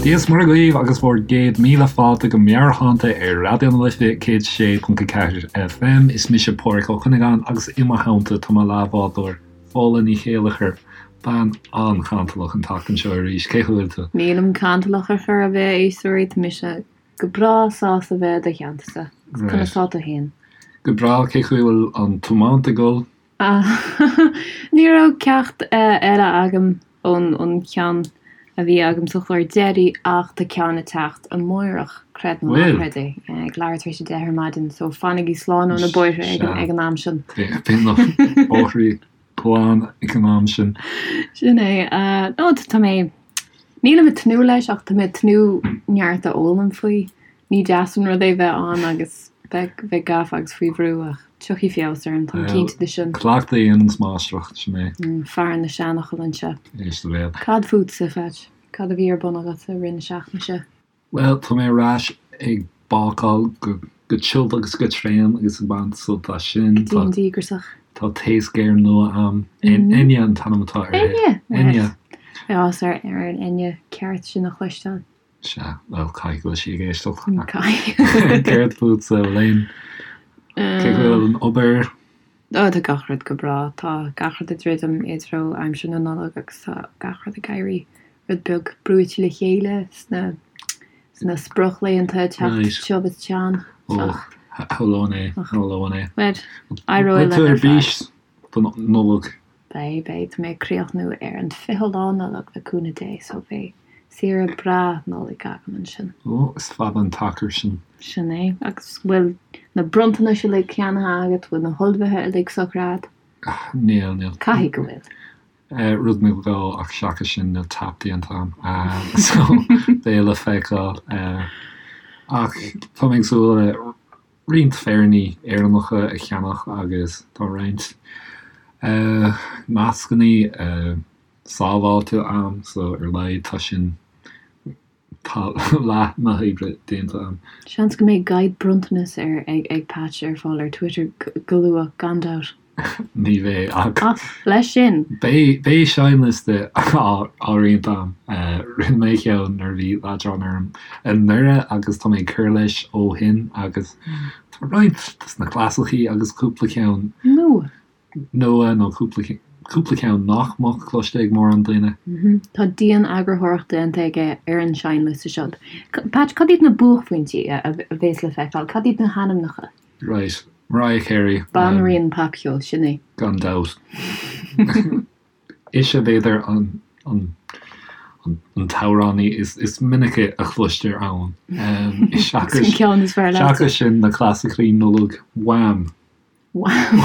Dia is Muire dhaoibh agus bhur gcéad míle fáilte go Meabhairshláinte ar Raidió na Life 106.4 FM. Is mise Pádhraic Ó Cuinneagáin agus i mo theannta tá mo leathbhádóir Fódhla Ní Chéilleachair, bean an-chantalach an tseachtain seo arís. Cén chaoi a bhfuil tú? Nílim cantalach ar chor ar bith, a éisteoirí, tá mise go breá sásta bheith i do theanntasa. Conas tá tú féin? Go breá, cén chaoi a bhfuil an tiomáint ag dul? Ní raibh ceacht eile agam ón cheann a bhí agam sa chlár deiridh ach tá ceann ag teacht amáireach, creid nó ná creid é, ag leathuair tar éis a 10 ar maidin, so fanaigí slán ó na bóithre ag an am sin. Beidh na bóithre glan ag an am sin. Sin é. No, tá mé, nílim ag tnúth leis ach tá mé ag tnúth neart a fhoghlaim faoi. Ní deas an rud é bheith ann agus bheith gafa agus faoi bhrú ach tiocfaidh feabhas orm, táim cinnte de sin. Cleachtadh a dhéananns máistreacht, sin é. Fear na seanfhocal anseo. Éist do bhéal. Cad fútsa, Phatch? Cad a bhí ar bun agat i rith na seachtaine seo? Bhuel, tá mé ar ais ag bácáil go tiubh agus go tréan agus ag baint sult as sin. Go dian díograiseach. Tá taos géar nua a'm. Enya an t-ainm atá uirthi. Enya! Enya! Beidh áthas ar an Enya ceart sin a chloisteáil. Sea, bhuel, caithfidh go bhfuil sí ag éisteacht. Caithfidh. Céard fútsa, Elaine? Cén chaoi a bhfuil an obair? Ó, tá gach rud go breá. Tá gach rud ag druidim i dtreo aimsir na Nollag agus tá gach rud ag éirí rud beag brúite le chéile sna sna sprioclaethanta ag teacht tiubh is teann. Ó, shamhlóinn é, shamhlóinn é. Bhuel, éireoidh linn ar fad. Beidh tú ar bís don Nollaig. Beidh, beidh. Tá mé ag críochnú ar an 20 lá Nollag le cúnamh Dé so beidh saoire breá Nollag agam ansin. Ó, is fada an t-achar sin. Sin é. Agus bhfuil na bronntanais uilig ceannaithe agat? Bhfuil na hullmhuithe uilig socraithe agat? Níl, níl. Caithfidh go bhfuil. Rud nó dhó ach seachas sin níl tap déanta agam. So, beidh le feiceáil. Ach tá mé ag súil le roinnt féiríní Éireannacha a cheannach agus tá roinnt nascanna sábháilte a'm so ar a laghad tá sin, tá leath na hoibre déanta a'm. Seans go mbeidh guide bronntanas ar ag Patch ar fáil ar Twitter go luath, gan dabht. Ní bheidh ach. Ach leis sin. Beidh seinnliosta á roinnt a'm. Rinne mé ceann nuair a bhí leadrán orm anuraidh agus tá mé ag cur leis ó shin agus tá roinnt dos na clasaicí agus cúpla ceann nua nua nó cúpla cúpla ceann nach mbeadh cloiste ag mórán daoine. Tá dian-eagarthóireacht déanta aige ar an seinnliosta seo. Patch, cad iad na buaicphointí a bhéas le feiceáil? Cad iad na hainmneacha? Right. Mariah Carey. Banríon popcheoil, sin í. Gan dabht. Ise b'fhéidir an an an t-amhránaí is is minice a chloistear ann. Seachas an ceann is fearr leat. Seachas sin na clasaicí Nollag, Wham! Wham!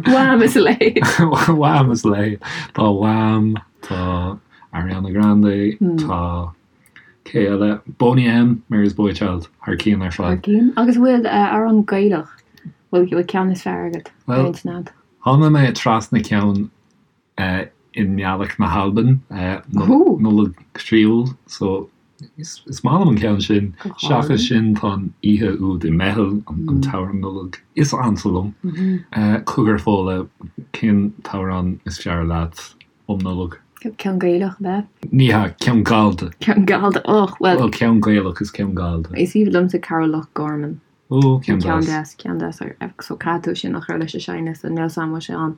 Wham is a leithéid. Wham is a leithéid. Tá Wham, tá Ariana Grande, tá Cé eile? Boney M, Mary's Boy Child, thar cionn ar fad. Thar cionn. Agus an bhfuil amhrán Gaelach, bhfuil ceann is fearr agat ar intinn agat? Tháinig mé trasna ceann i nGaelic na hAlban, Nollaig Chroíúil, so is maith liom an ceann sin. Seachas sin tá an oíche úd i mBeithil, an t-amhrán Nollag is ansa liom. Cogar Fódhla, cén t-amhrán is fearr leat? um Nollaig. Ceann Gaelach, ab ea? Ní hea, ceann Gallda. Ceann Gallda, och, bhuel. Bhuel, ceann Gaelach is ceann Gallda. Is aoibhinn liomsa Carol Loch Garman. Ó, ceann deas. Ceann deas, ceann deas. So caithfidh tú sin a chur leis an seinnliosta, níl 's a'm an bhfuil sé ann.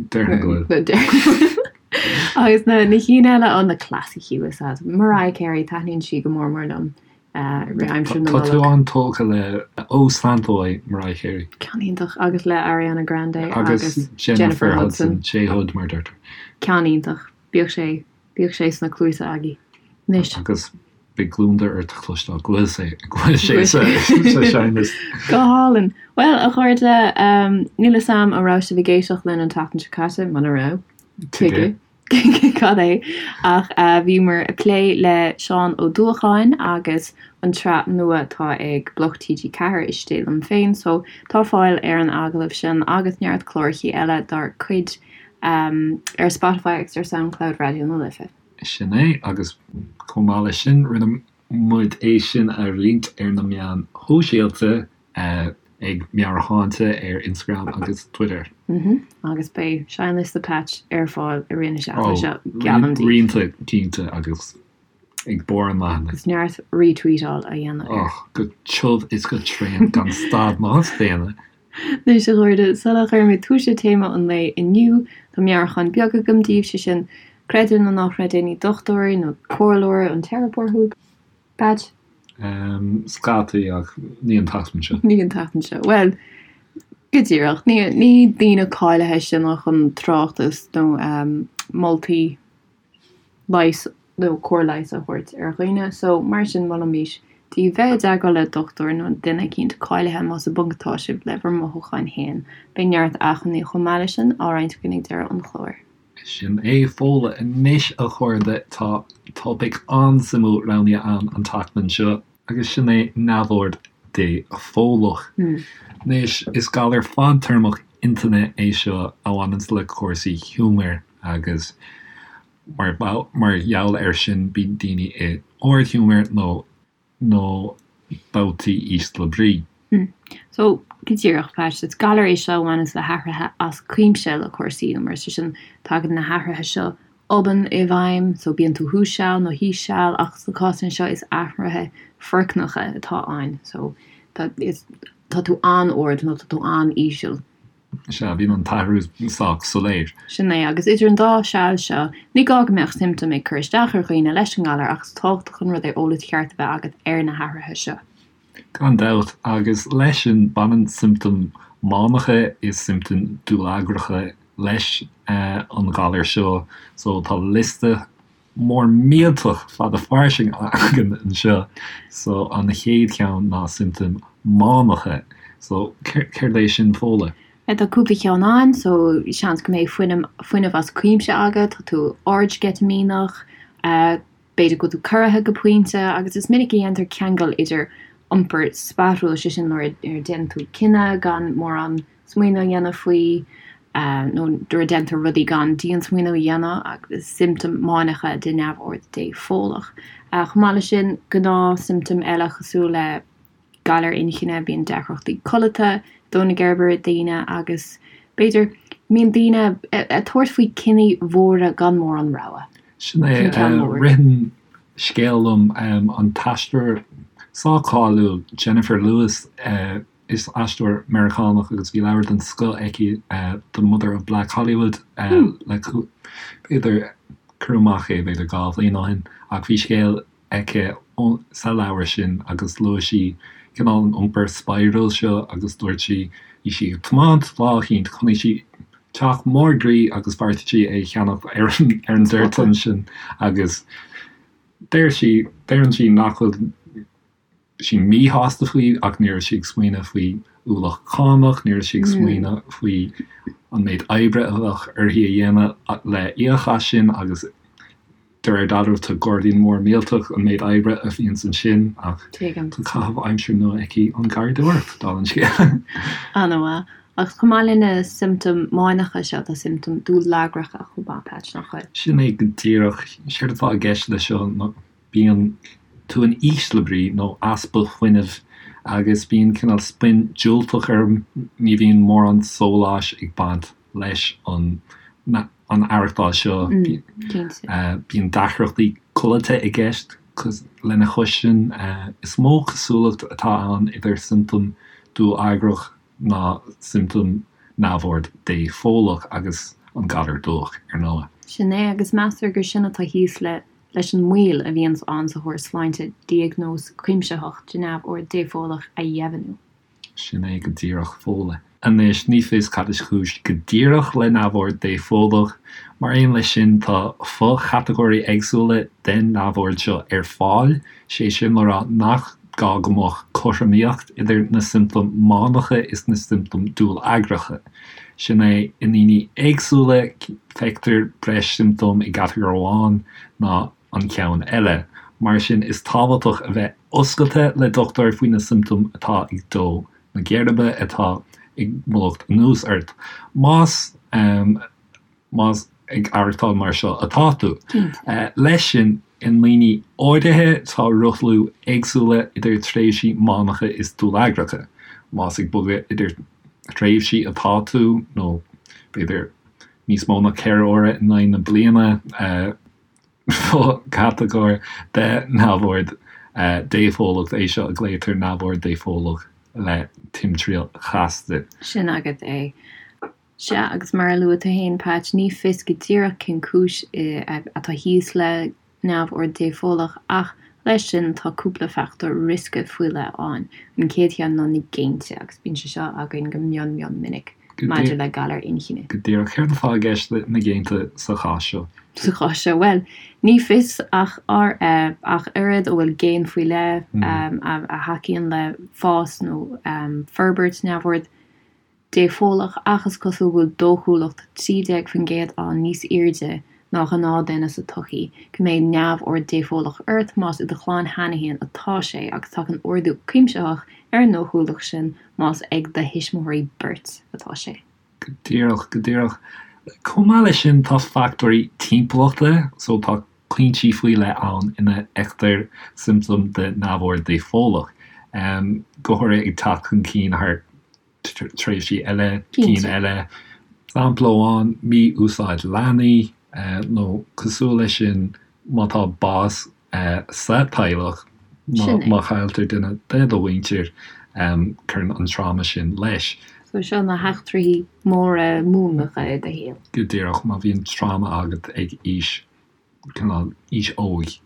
Déarfainn go bhfuil. Déarfainn go bhfuil. Agus na cinn eile, ó, na clasaicí, is ea. Mariah Carey, taitníonn sí go mór mór liom. Aimsir na Nollag. Tá tú an-tógtha le Oh Santaway, Mariah Carey. Ceann iontach. Agus le Ariana Grande agus Jennifer Hudson. J Hud mar deirtear. Ceann iontach. Bíodh sé, bíodh sé sna cluasa agaibh. Anois. Agus beidh gliondar ort a chloisteáil go bhfuil sé, go bhfuil sé sa seinnliosta. Go hálainn. Bhuel, a chairde, níl 'fhios a'm an raibh sibh ag éisteacht linn an tseachtain seo caite, muna raibh, tuige? Cad é? Ach bhíomar ag plé le Seán Ó Dúacháin agus an tsraith nua atá ag Bloc TG4, Istigh Liom Féin, so tá fáil ar an agallamh sin agus neart clárachaí eile dár cuid ar Spotify agus ar Soundcloud Raidió na Life. Sin é, agus chomh maith leis sin, rinne muid é sin a roinnt ar na meáin shóisialta ag Meabhairshláinte ar Instagram agus Twitter. Agus beidh seinnliosta Patch ar fáil i rith na seachtaine seo, geallaim daoibh. Roinnte cinnte agus. Ag barr an leathanaigh. Agus neart retweetáil á dhéanamh air. Och, go tiubh is go tréan gan stad ná staonadh. Anois, a chairde, sula gcuirimid tús le téama an lae inniu, tá meabhrúchán beag agam daoibh, sé sin, creid é nó ná creid é, ní dochtúir nó comhairleoir an teiripeoir thú. Patch? Scataí, ach ní an tseachtain seo. Ní an tseachtain seo. Bhuel, go díreach. Ní, ní daoine cáilithe sinne chun tráchtas nó moltaí leighis nó cóir leighis a thabhairt ar dhaoine. So, mar sin, molaimís daoibh bheith i dteagmháil le dochtúir nó duine eicínt cáilithe más i bponc atá sibh le bhur mothúcháin féin. Beidh neart acmhainní chomh maith leis sin á roinnt againn ag deireadh an chláir. Sin é Fódhla anois a chairde, tá topaic an-suimiúil roghnaithe a'm an tseachtain seo agus sin é neamhord dépholach. Anois, is galar fadtéarmach intinne é seo a bhaineanns le cúrsaí giúmair agus mar gheall air sin bíonn daoine i ardghiúmar nó nó babhtaí ísle brí. So, go díreach, Patch, is galar é seo a bhaineanns le hathruithe as cuimse le cúrsaí giúmair, sé sin, tagann na hathruithe seo obann i bhfeidhm, so bíonn tú thuas seal nó thíos seal, ach sna cásanna seo is athruithe foircneacha atá ann, so tá, is, tá tú an-ard nó tá tú an-íseal. Sea, bíonn an t-athrú sách soiléir. Sin é, agus idir an dá seal seo, ní gá go mbeadh siomptóim ag cur isteach ar dhaoine leis an ngalar ach is tábhachtach an rud é eolas ceart a bheith agat ar na hathruithe seo. Gan dabht, agus leis sin, baineann siomptóim mánacha is siomptóim dúlagracha leis an ghalar seo, so tá liosta mór millteach fada fairsing againn anseo. So an chéad cheann ná siomptóim mánacha. So céard é sin Fódhla? Tá cúpla ceann ann, so seans go mbeidh fuinneamh fuinneamh as cuimse agat, tá tú ardsceitimíneach, b'fhéidir go bhfuil tú corraithe go pointe agus is minic a dhéantar ceangal idir iompar spadhrúil, sé sin nuair a déanann tú cinneadh gan mórán smaoineamh a dhéanamh faoi, nó nuair a déantar rudaí gan diansmaoineamh a dhéanamh, agus siomptóim mánacha de neamhord dépholach. Chomh maith leis sin, gnáthshiomptóim eile cosúil le galar inchinne, bíonn deacrachtaí codlata, dó na geirbe ar daoine agus, b'fhéidir, bíonn daoine ag tabhairt faoi cinní mhóra gan mórán rogha. Sin é, ritheann scéal liom, an t-aisteoir sách cáiliúil Jennifer Lewis, Is aisteoir Meiriceánach agus bhí leabhar den scoth aici, The Mother of Black Hollywood, le b'fhéidir, cuireadh amach é b'fhéidir 2 bhliain ó shin, ach bhí scéal aici sa leabhar sin agus luaigh sí cineál an iompar spadhrúil seo agus dúirt sí, bhí sí ag tiomáint lá eicínt, chonaic sí teach mór groí agus bheartaigh sí é a cheannach ar an dtoirt ansin agus deir sí, deireann sí nach bhfuil sí míshásta faoi ach ní raibh sí ag smaoineamh faoi ualach cánach, ní raibh sí ag smaoineamh faoi an méid oibre a bheadh uirthi a dhéanamh le íoc as sin agus de réir dealraimh tá gairdín mór millteach an méid oibre a bhíonns ansin ach tá caitheamh aimsire nua aici an gharraíodóireacht, dála an scéil. An-mhaith. Ach chomh maith le na siomptóim mánacha seo tá siomptóim dúlagracha chomh maith, Patch, nach bhfuil? Sin é go díreach. Séard atá i gceist leis seo ná Bíonn tú in ísle brí nó easpa fuinnimh agus bíonn cineál spin diúltach orm, ní bhíonn mórán sóláis ag baint leis an an aireachtáil seo. Bíonn deacrachtaí codlata i gceist lena chois sin. Is mó cosúlacht atá ann idir siomptóim dúlagrach ná siomptóim neamhord dépholach agus an galar dubhach, ar ndóigh. Sin é, agus meastar gur sin atá thíos le leis an moill a bhíonns ann sa chóras sláinte diagnóis cuimsitheach de neamhord dépholach a dheimhniú. Sin é go díreach Fódhla. Anois, ní fios cad is cúis go díreach le neamhord dépholach. Mar aon leis sin, tá fo-chatagóirí éagsúla den neamhord seo ar fáil, sé sin le rá nach gá go mbeadh cothromaíocht idir na siomptóim mánacha is na siomptóim dúlagracha. Sin é, i ndaoine éagsúla, feictear breis siomptóm i gcatagóir amháin ná an ceann eile. Mar sin, is tábhachtach a bheith oscailte le dochtúir faoi na siomptóim atá ag dó na geirbe, atá ag mullacht anuas ort. Más. más ag aireachtáil mar seo atá tú. Leis sin, i ndaoine áirithe tá rothlú éagsúla idir tréimhsí mánacha is dúlagracha. Más ag bogadh idir tréimhsí atá tú, nó b'fhéidir níos mó ná 4 huaire in aghaidh na bliana. Fo-chatagóir de neamhord dépholach é seo a ghlaotar neamhord dépholach le timthriall chasta. Sin agat é. Sea, agus mar a luaigh tú féin, Patch, ní fios go díreach cén cúis atá thíos le neamhord dépholach ach leis sin tá cúpla fachtóir riosca faoi leith ann. An chéad cheann ná na géinte agus bíonn sé seo againn go mion mion minic maidir le galair inchinne. Go díreach. Céard atá i gceist le na géinte sa chás seo? Sa chás seo, bhuel, ní fios ach ach oiread an bhfuil géin faoi leith a thacaíonn le fás nó forbairt neamhord dépholach ach is cosúil go bhfuil dóchúlacht 13% ann níos airde ná ghnáthduine sa tsochaí go mbeidh neamhord dépholach ort más i do chlann cheana féin atá sé agus tagann ardú cuimsitheach ar an ndóchúlacht sin más ag do thuismitheoirí beirt atá sé. Go díreach, go díreach. Chomh maith leis sin tá fachtóirí timpeallachta, so tá pointí faoi leith ann ina bhfeictear siomptóim de neamhord dépholach, go háirithe ag teacht chun cinn thar tréimhsí eile, cinn eile. Sampla amháin, mí-úsáid leanaí, nó cosúil leis sin, má tá bás sa teaghlach, má chailltear duine de do mhuintir, cuireann an tráma sin leis. So seo na heachtraí móra múnlacha i do shaol. Go díreach, má bhíonn tráma agat ag aois cineál aois óig.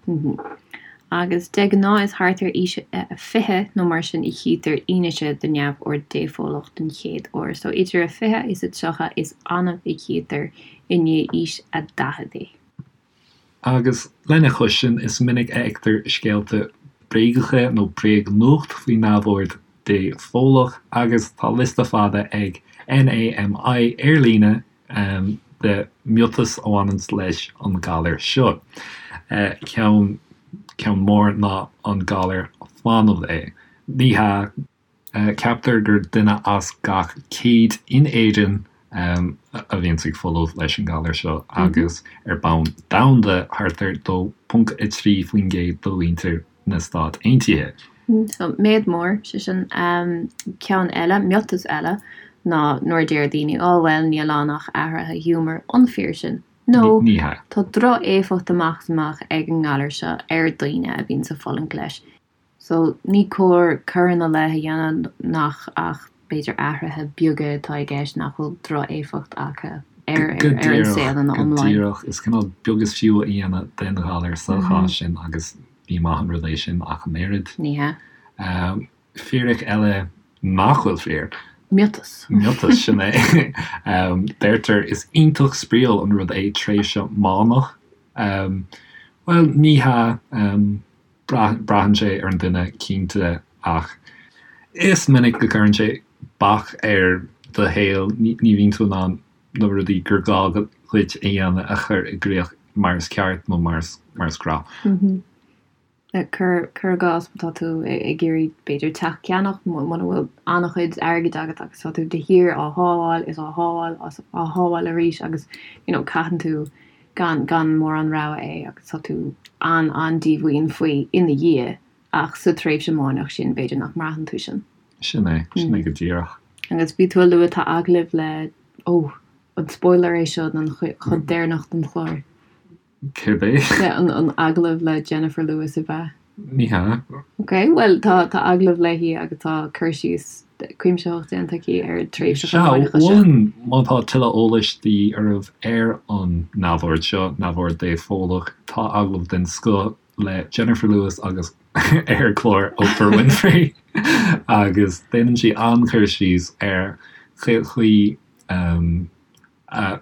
Agus de ghnáth is thart ar aois a 20 nó mar sin a chítear fianaise de neamhord dépholach den chéad uair. So idir a 20 is a 30 is annamh a chítear i ndiaidh aois a 40 é. Agus lena chois sin is minic a fheictear scéalta bréagacha nó bréagnuacht faoi neamhord dépholach agus tá liosta fada ag NAMI ar líne de miotais a bhaineanns leis an galar seo. Ceann ceann mór ná an galar folamh é. Ní hea. Ceaptar gur duine as gach 100 in Éirinn a bhíonns ag folamh leis an galar seo agus ar bonn domhanda thart ar 2.3% de mhuintir na Stát Aontaithe. So, méid mór, sé sin. Ceann eile, miotas eile, ná nuair a deir daoine, oh bhuel, níl ann ach athruithe giúmair, an fíor sin? Nó, Ní hea. tá droch-éifeacht amach is amach ag an ngalar seo ar dhaoine a bhíonn ag fulaingt leis. So, ní cóir cur ina leith a dhéanamh nach ach b'fhéidir athruithe beaga atá i gceist nach bhfuil droch-éifeacht acu ar Go ar an díreach, saol ina go iomláine. díreach. Is cineál beag is fiú a dhéanamh den ghalar sa chás sin agus ní maith an rud é sin ach an oiread. Ní hea. Fíric eile nach bhfuil fíor. Miotas. Miotas, sin é. Deirtear is iontach spraíúil an rud é tréimhse mánach. Bhuel, ní hea. Braitheann sé ar an duine, cinnte, ach is minic go gcuireann sé bac ar do shaol, ní bhíonn tú in ann na rudaí gur gá dhuit a dhéanamh a chur i gcrích mar is ceart nó mar is gnáth. Cuir i gcás má tá tú ag iarraidh b'fhéidir teach a cheannach, muna bhfuil an-chuid airgid agat agus tá tú de shíor á shábháil is á shábháil is á shábháil arís agus you know caitheann tú gan gan mórán rogha é agus tá tú an-an-díomhaoin faoi ina dhiaidh ach sa tréimhse máineach sin b'fhéidir nach mbraitheann tú sin. Sin é, sin é go díreach. Agus bhí tú a lua tá agallamh le, ó, an spoiler é seo don chuid deireanach den chlár? Céard é? An an agallamh le Jennifer Lewis ab ea? Ní hea. Ok, bhuel tá tá agallamh léi agus tá cur síos cuimsitheach déanta aici ar tréimhse Sea, mholfainn má tá tuilleadh eolais de dhíth oraibh ar an neamhord seo, neamhord dépholach, tá agallamh den scoth le Jennifer Lewis agus ar chlár Oprah Winfrey agus déanann sí an-chur síos ar chaoi a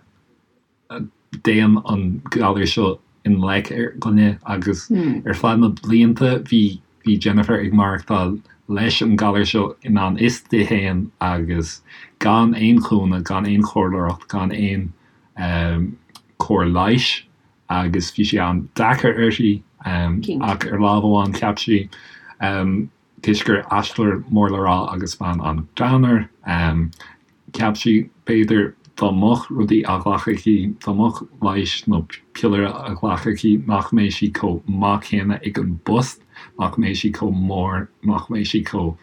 dtéann an galar seo i ngleic ar dhuine agus ar feadh na blianta bhí bhí Jennifer ag maireachtáil leis an galar seo i ngan fhios di féin agus gan aon chúnamh, gan aon chomhairleoireacht, gan aon cóir leighis agus bhí sé an-deacair uirthi ach ar lámh amháin cheap sí Toisc gur aisteoir mór le rá agus bean an-ghreannmhar, cheap sí, b'fhéidir, dá mbeadh rudaí á ghlacadh aici, dá mbeadh leigheas nó piollaire á ghlacadh aici, nach mbeadh sí chomh maith céanna ag an bpost, nach mbeadh sí chomh mór, nach mbeadh sí chomh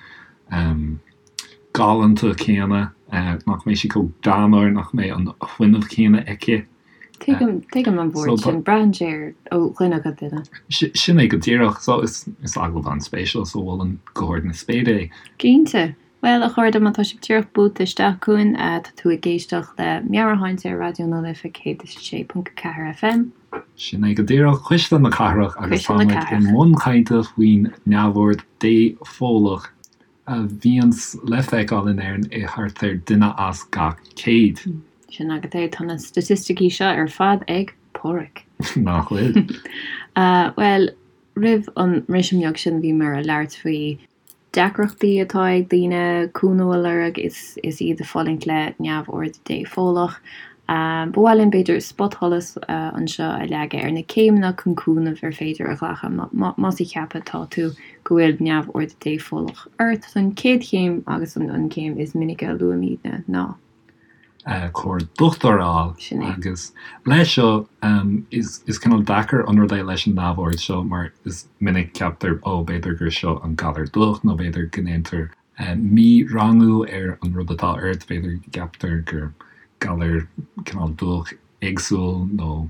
galánta céanna, nach mbeadh sí chomh greannmhar, nach mbeadh an fuinneamh céanna aici. Tuigim, tuigim an bhuairt sin. Braitheann sé ar ó dhuine go duine. Sin é go díreach. So is agallamh an-spéisiúil so mholfainn go hard na spéire é. Cinnte. Bhuel, a chairde, má tá sibh díreach buailte isteach chugainn, tá tú ag éisteacht le Meabhairshláinte ar Raidió na Life 106.4 FM. Sin é go díreach, Cuisle na Cathrach agus tá muid i mbun cainte faoin neamhord dépholach a bhíonns le feiceáil in Éirinn i thart ar duine as gach 100. Sin agat é, tá na staitisticí seo ar fad ag Páraic. Nach bhfuil? Bhuel, roimh an mbriseadh beag sin bhíomar ag labhairt faoi deacrachtaí atá ag daoine cúnamh a lorg is is iad ag fulaingt le neamhord dépholach. Ba mhaith linn b'fhéidir spotsholas anseo a leagadh ar na céimeanna chun cúnamh ar féidir a ghlacadh más ag ceapadh atá tú go bhfuil neamhord dépholach ort. So an chéad chéim agus an chéim is minice a luaimidne ná. Comhairle dochtúra a fháil. Sin é. Agus leis seo, is cineál deacair an rud é leis an neamhord seo mar is minic ceaptar, ó, b'fhéidir gur seo an galar dubhach nó b'fhéidir go ndéantar mí-rangú ar an rud atá ort, b'fhéidir go gceaptar gur galar cineál dubhach éagsúil nó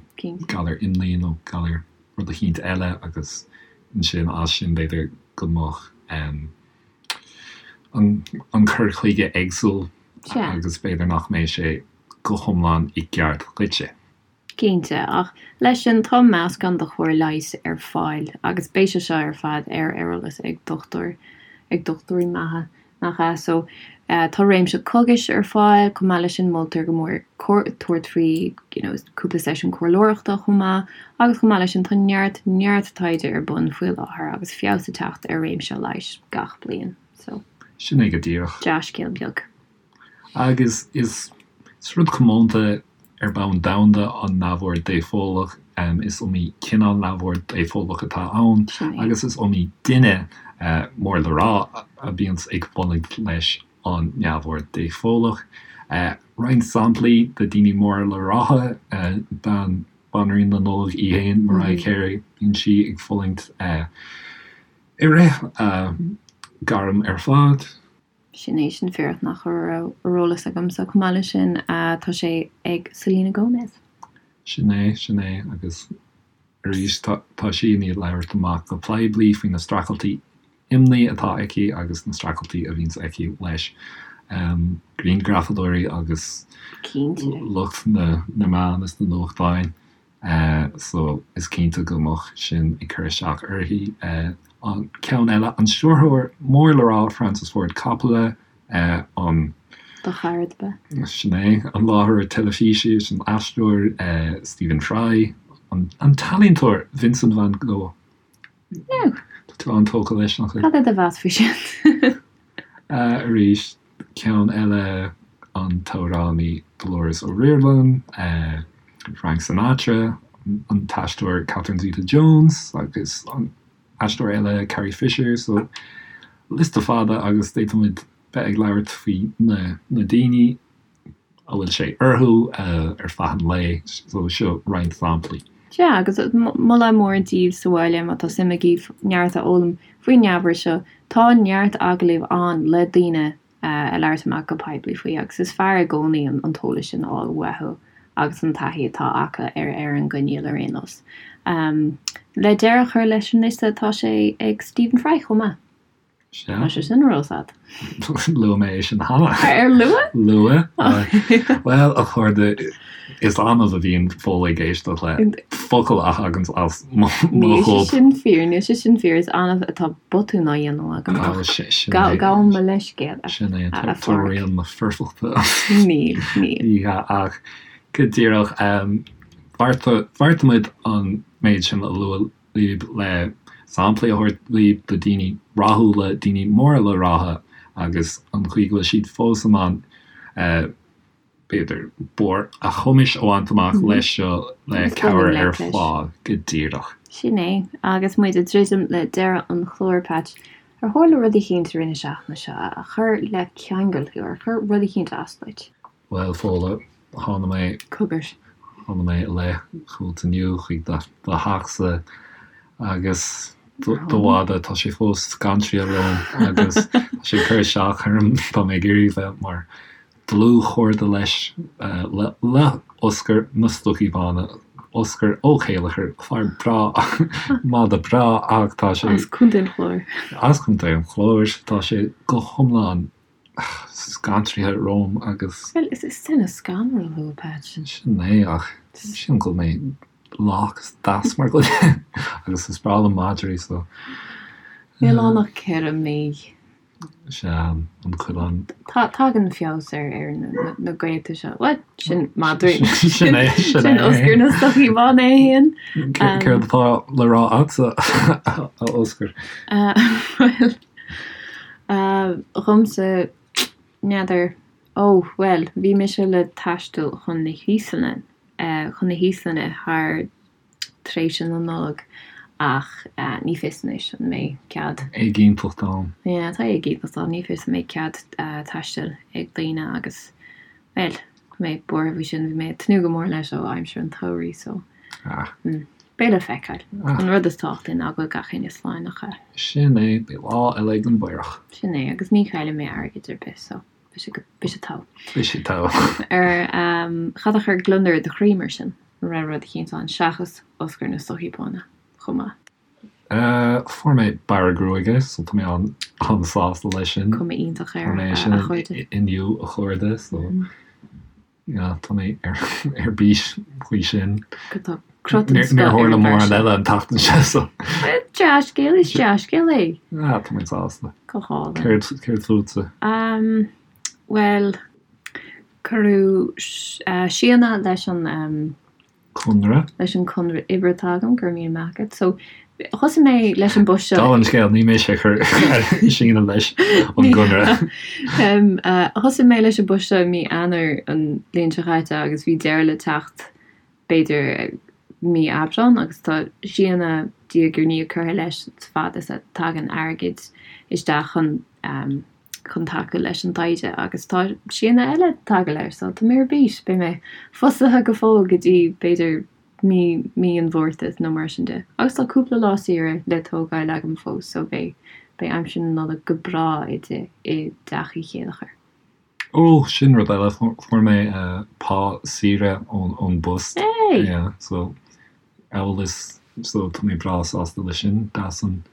galar imní nó galar rud eicínt eile agus ansin as sin b'fhéidir go mbeadh an cur chuige éagsúil agus b'fhéidir nach mbeidh sé go hiomlán i gceart dhuitse. Cinnte, ach leis sin tá meascán de chóir leighis ar fáil agus beidh sé seo ar fad ar eolas ag dochtúir, ag dochtúirí maithe, nach ea? So, tá réimse cógais ar fáil, chomh maith leis sin moltar go mór tabhairt faoi you know cúpla seisiún comhairleoireachta chomh maith agus chomh maith leis sin tá neart, neart taighde ar bun faoi láthair agus feabhas ag teacht ar réimse leighis gach bliain. So. Sin é go díreach. Dea-scéal beag. Agus is rud comónta ar bhonn domhanda an neamhord dépholach. Is iomaí cineál neamhord dépholach atá ann agus is iomaí duine mór le rá a bhíonns ag fulaingt leis an neamhord dépholach. Roinnt samplaí de daoine móra le rá, bean Banríon na Nollag í fhéin, Mariah Carey, bíonn sí ag fulaingt i rith a gairm ar fad. Sin é sin fíor nach raibh ar eolas agamsa. Chomh maith leis sin, tá sé ag Selena Gomez. Sin é, sin é, agus arís tá sí i ndiaidh labhairt amach go poiblí faoi na streachailtí imní atá aici agus na streachailtí a bhíonns aici leis grianghrafadóirí agus lucht na meán is na nuachtáin. So is cinnte go mbeadh sin ag cur isteach uirthi. An ceann eile, an stiúrthóir mór le rá Francis Ford Coppola, an. Do chara ab ea? Sin é. An láithreoir teilifíse is an aisteoir Stephen Fry, an t-ealaíontóir Vincent van Gogh. Now. Tá tú an-tógtha leis, nach bhfuil? Cad é do mheas faoi sin? Arís, ceann eile, an t-amhránaí Dolores O'Riordan, Frank Sinatra, an t-aisteoir Catherine Zeta-Jones agus an aisteoir eile Carrie Fisher, so liosta fada agus d'fhéadfadh muid bheith ag labhairt faoi na daoine. a bhfuil sé orthu ar feadh an lae, so seo roinnt samplaí. Sea, agus moladh mór daoibh sa bhaile má tá suim agaibh neart a fhoghlaim faoin neamhord seo, tá neart agallaimh ann le daoine a labhairt amach go poiblí faoi agus is fearr i gcónaí an t-eolas sin a fháil uathu agus an taithí atá acu ar ar an gcoinníoll ar aon nós. Le deireadh a chur leis an liosta tá sé ag Stephen Fry chomh maith. Sea. Tá sé sin ar eolas agat. Luaigh mé é sin cheana. Ar luaigh? Luaigh. Bhuel, a chairde, is annamh a bhíonn Fódhla ag éisteacht le focal a thaganns as mo Níl sé ghob. sin fíor, níl sé sin fíor, is annamh atá botún á dhéanamh agam ach Sin é. gabhaim mo leithscéal, a Sin é, tá Pháraic. rian na foirfeachta. Níl, níl. Ní hea, ach go díreach, bheartaigh muid an méid sin a lua libh le samplaí a thabhairt libh de daoine rathúla, daoine móra le rá agus an chaoi go bhfuil siad fós in ann b'fhéidir barr a chumais a bhaint amach leis seo le cabhair ar fáil go díreach. Sin é, agus muid ag druidim le deireadh an chláir, Patch, ar tharla rud eicínt i rith na seachtaine seo a chuir le ceangal thú, ar chuir rud eicínt as duit? Bhuel, Fódhla, tháinig mé. Cogar. Tháinig mé i leith chugat inniu chuig do theachsa agus do mhadadh, tá sé fós gan triail romham agus tá sé ag cur isteach orm, tá mé ag iarraidh bheith mar dlúthchairde leis, le Oscar na Stocaí Bána, Oscar Ó Céileachair, fear breá, mada breá ach tá sé. As Contae an Chláir. As Contae an Chláir. Tá sé go hiomlán scanraithe romham agus. Bhuel, is duine scanrúil thú, a Patch. Sin é, ach sílim go bhfuil mé lách is deas mar dhuine agus is breá liom madraí so. Níl ann ach 4 mí. Sea, an coileán. Tagann feabhas ar na gaolta seo. Bhuel, sin madraí. Sin é, sin é. Sin Oscar na Stocaí Bána é féin. Céard atá le rá agatsa, a Oscar? Bhuel, dhomsa, n'fheadar. Ó, bhuel, bhí mise le taisteal chun na hÍoslainne, chun na hÍoslainne thar tréimhse na Nollag ach ní fios anois an mbeidh cead. Éiginnteacht ann. Yeah, tá éiginnteacht ann, ní fios an mbeidh cead taistil ag daoine agus, bhuel, tá mé buartha faoi sin, bhí mé ag tnúth go mór leis ó aimsir an tsamhraidh so beidh le feiceáil. An rud is tábhachtaí ná go bhfuil gach éinne slán nach ea? Sin é, beidh lá eile ag an bPaorach. Sin é, agus ní chaillfidh mé airgead ar bith so beidh sé go, beidh sé togha. Beidh sé togha. Ar, cad a chuir gliondar i do chroí mar sin? An raibh rud eicínt ann seachas Oscar na Stocaí Bána chomh maith? Fuair mé bearradh gruaige so tá mé an-sásta leis sin. Cuma iontach air, Fuair mé a sin chairde. inniu a chairde so yeah tá mé ar bís faoi sin. Tá crot den scoth Níor ar tharla an bhfear mórán seo. eile an tseachtain seo so. Dea-scéal, is dea-scéal é. Ah tá mé sásta. Go hálainn. Céard céard fútsa? Bhuel, Cuireadh síneadh leis an. Conradh. leis an conradh oibre atá agam, go raibh míle maith agat. So, thosaigh mé leis an bpost seo. Dála an scéil, ní mise a chuir síneadh leis an gconradh. Thosaigh mé leis an bpost seo i mí Eanáir an bhliain seo chaite agus bhí deireadh le teacht b'fhéidir mí Aibreán agus tá síneadh diaidh ar ndiaidh curtha leis fad is a tagann airgead isteach chun chun tacú leis an taighde agus tá síneadh eile tagtha leis so tá mé ar bís, beidh mé fostaithe go fóill go dtí b'fhéidir mí mí an Mhárta nó mar sin de. Agus tá cúpla lá saoire le tógáil agam fós so beidh beidh aimsir na Nollag go breá i i dteach Uí Chéileachair. Ó, sin rud eile, fuair mé pá saoire ón ón bpost. Hey! Yeah, so amhail is so tá mé breá sásta leis sin, deas an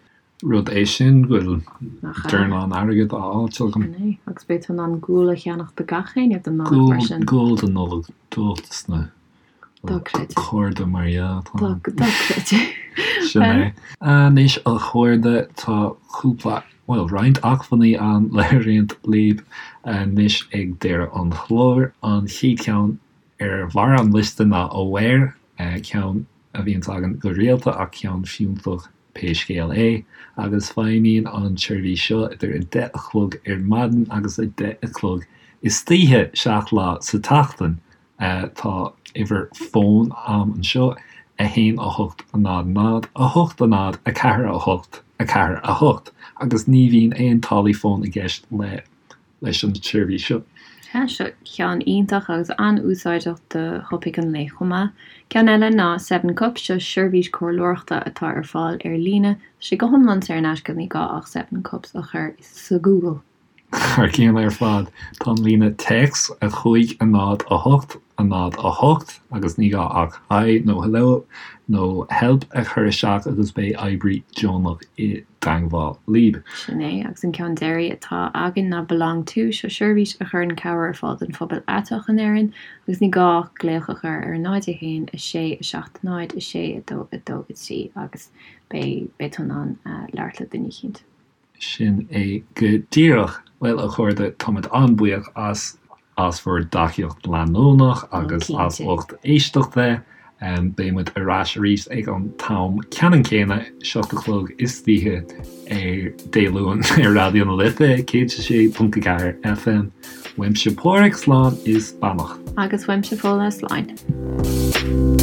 Rud é sin go bhfuil dornán airgid á fháilt agam. Sin é. Agus beidh tú in ann gual a cheannach do gach éinne don Nollaig mar sin. Gual don Nollaig, duit dos na cairde mar dhea. Dochreidte. Sin é. Anois a chairde, tá cúpla, bhuel roinnt acmhainní ann le roinnt libh anois ag deireadh an chláir. An chéad cheann ar bharr an liosta ná Aware, ceann a bhíonns againn go rialta ach ceann fiúntach pé scéal é, agus feidhmíonn an tseirbhís seo idir 10 a chlog ar maidin agus 10 a chlog istoíche, 7 lá sa tseachtain. Tá uimhir fóin a'm anseo, 1 8 0 0 8 0 4 8 4 8, agus ní bhíonn aon táillí fóin i gceist le leis an tseirbhís seo. Sea, seo ceann iontach agus an-úsáideach do thopaic an lae chomh maith. Ceann eile ná Seven Cups, seo seirbhís comhairleoireachta atá ar fáil ar líne. Tá sé go hiomlán saor in aisce, ní gá ach Seven Cups a chur sa Google. Thar cionn ar fad, tá an líne téacs 5 0 8 0 8 agus ní gá ach Hi nó Hello nó Help a chur isteach agus beidh oibrí deonach i dteangmháil libh. Sin é, agus an ceann deiridh atá againn ná Belong To, seo seirbhís a chuireann cabhair ar fáil don phobal aiteach in Éirinn agus ní gá ach glaoch a chur ar 0 1 6 7 0 6 2 2 3 agus beidh beidh tú in ann labhairt le duine eicínt. Sin é go díreach. Bhuel, a chairde, táimid an-bhuíoch as as bhur dtacaíocht leanúnach agus as ucht éisteachta. Beidh muid ar ais arís ag an t-am ceannann céanna, 7 a chlog istoíche ar Dé Luain ar Raidió na Life 106.4 FM. Uaimse Páraic, slán is beannacht. Agus uaimse Fódhla, slán.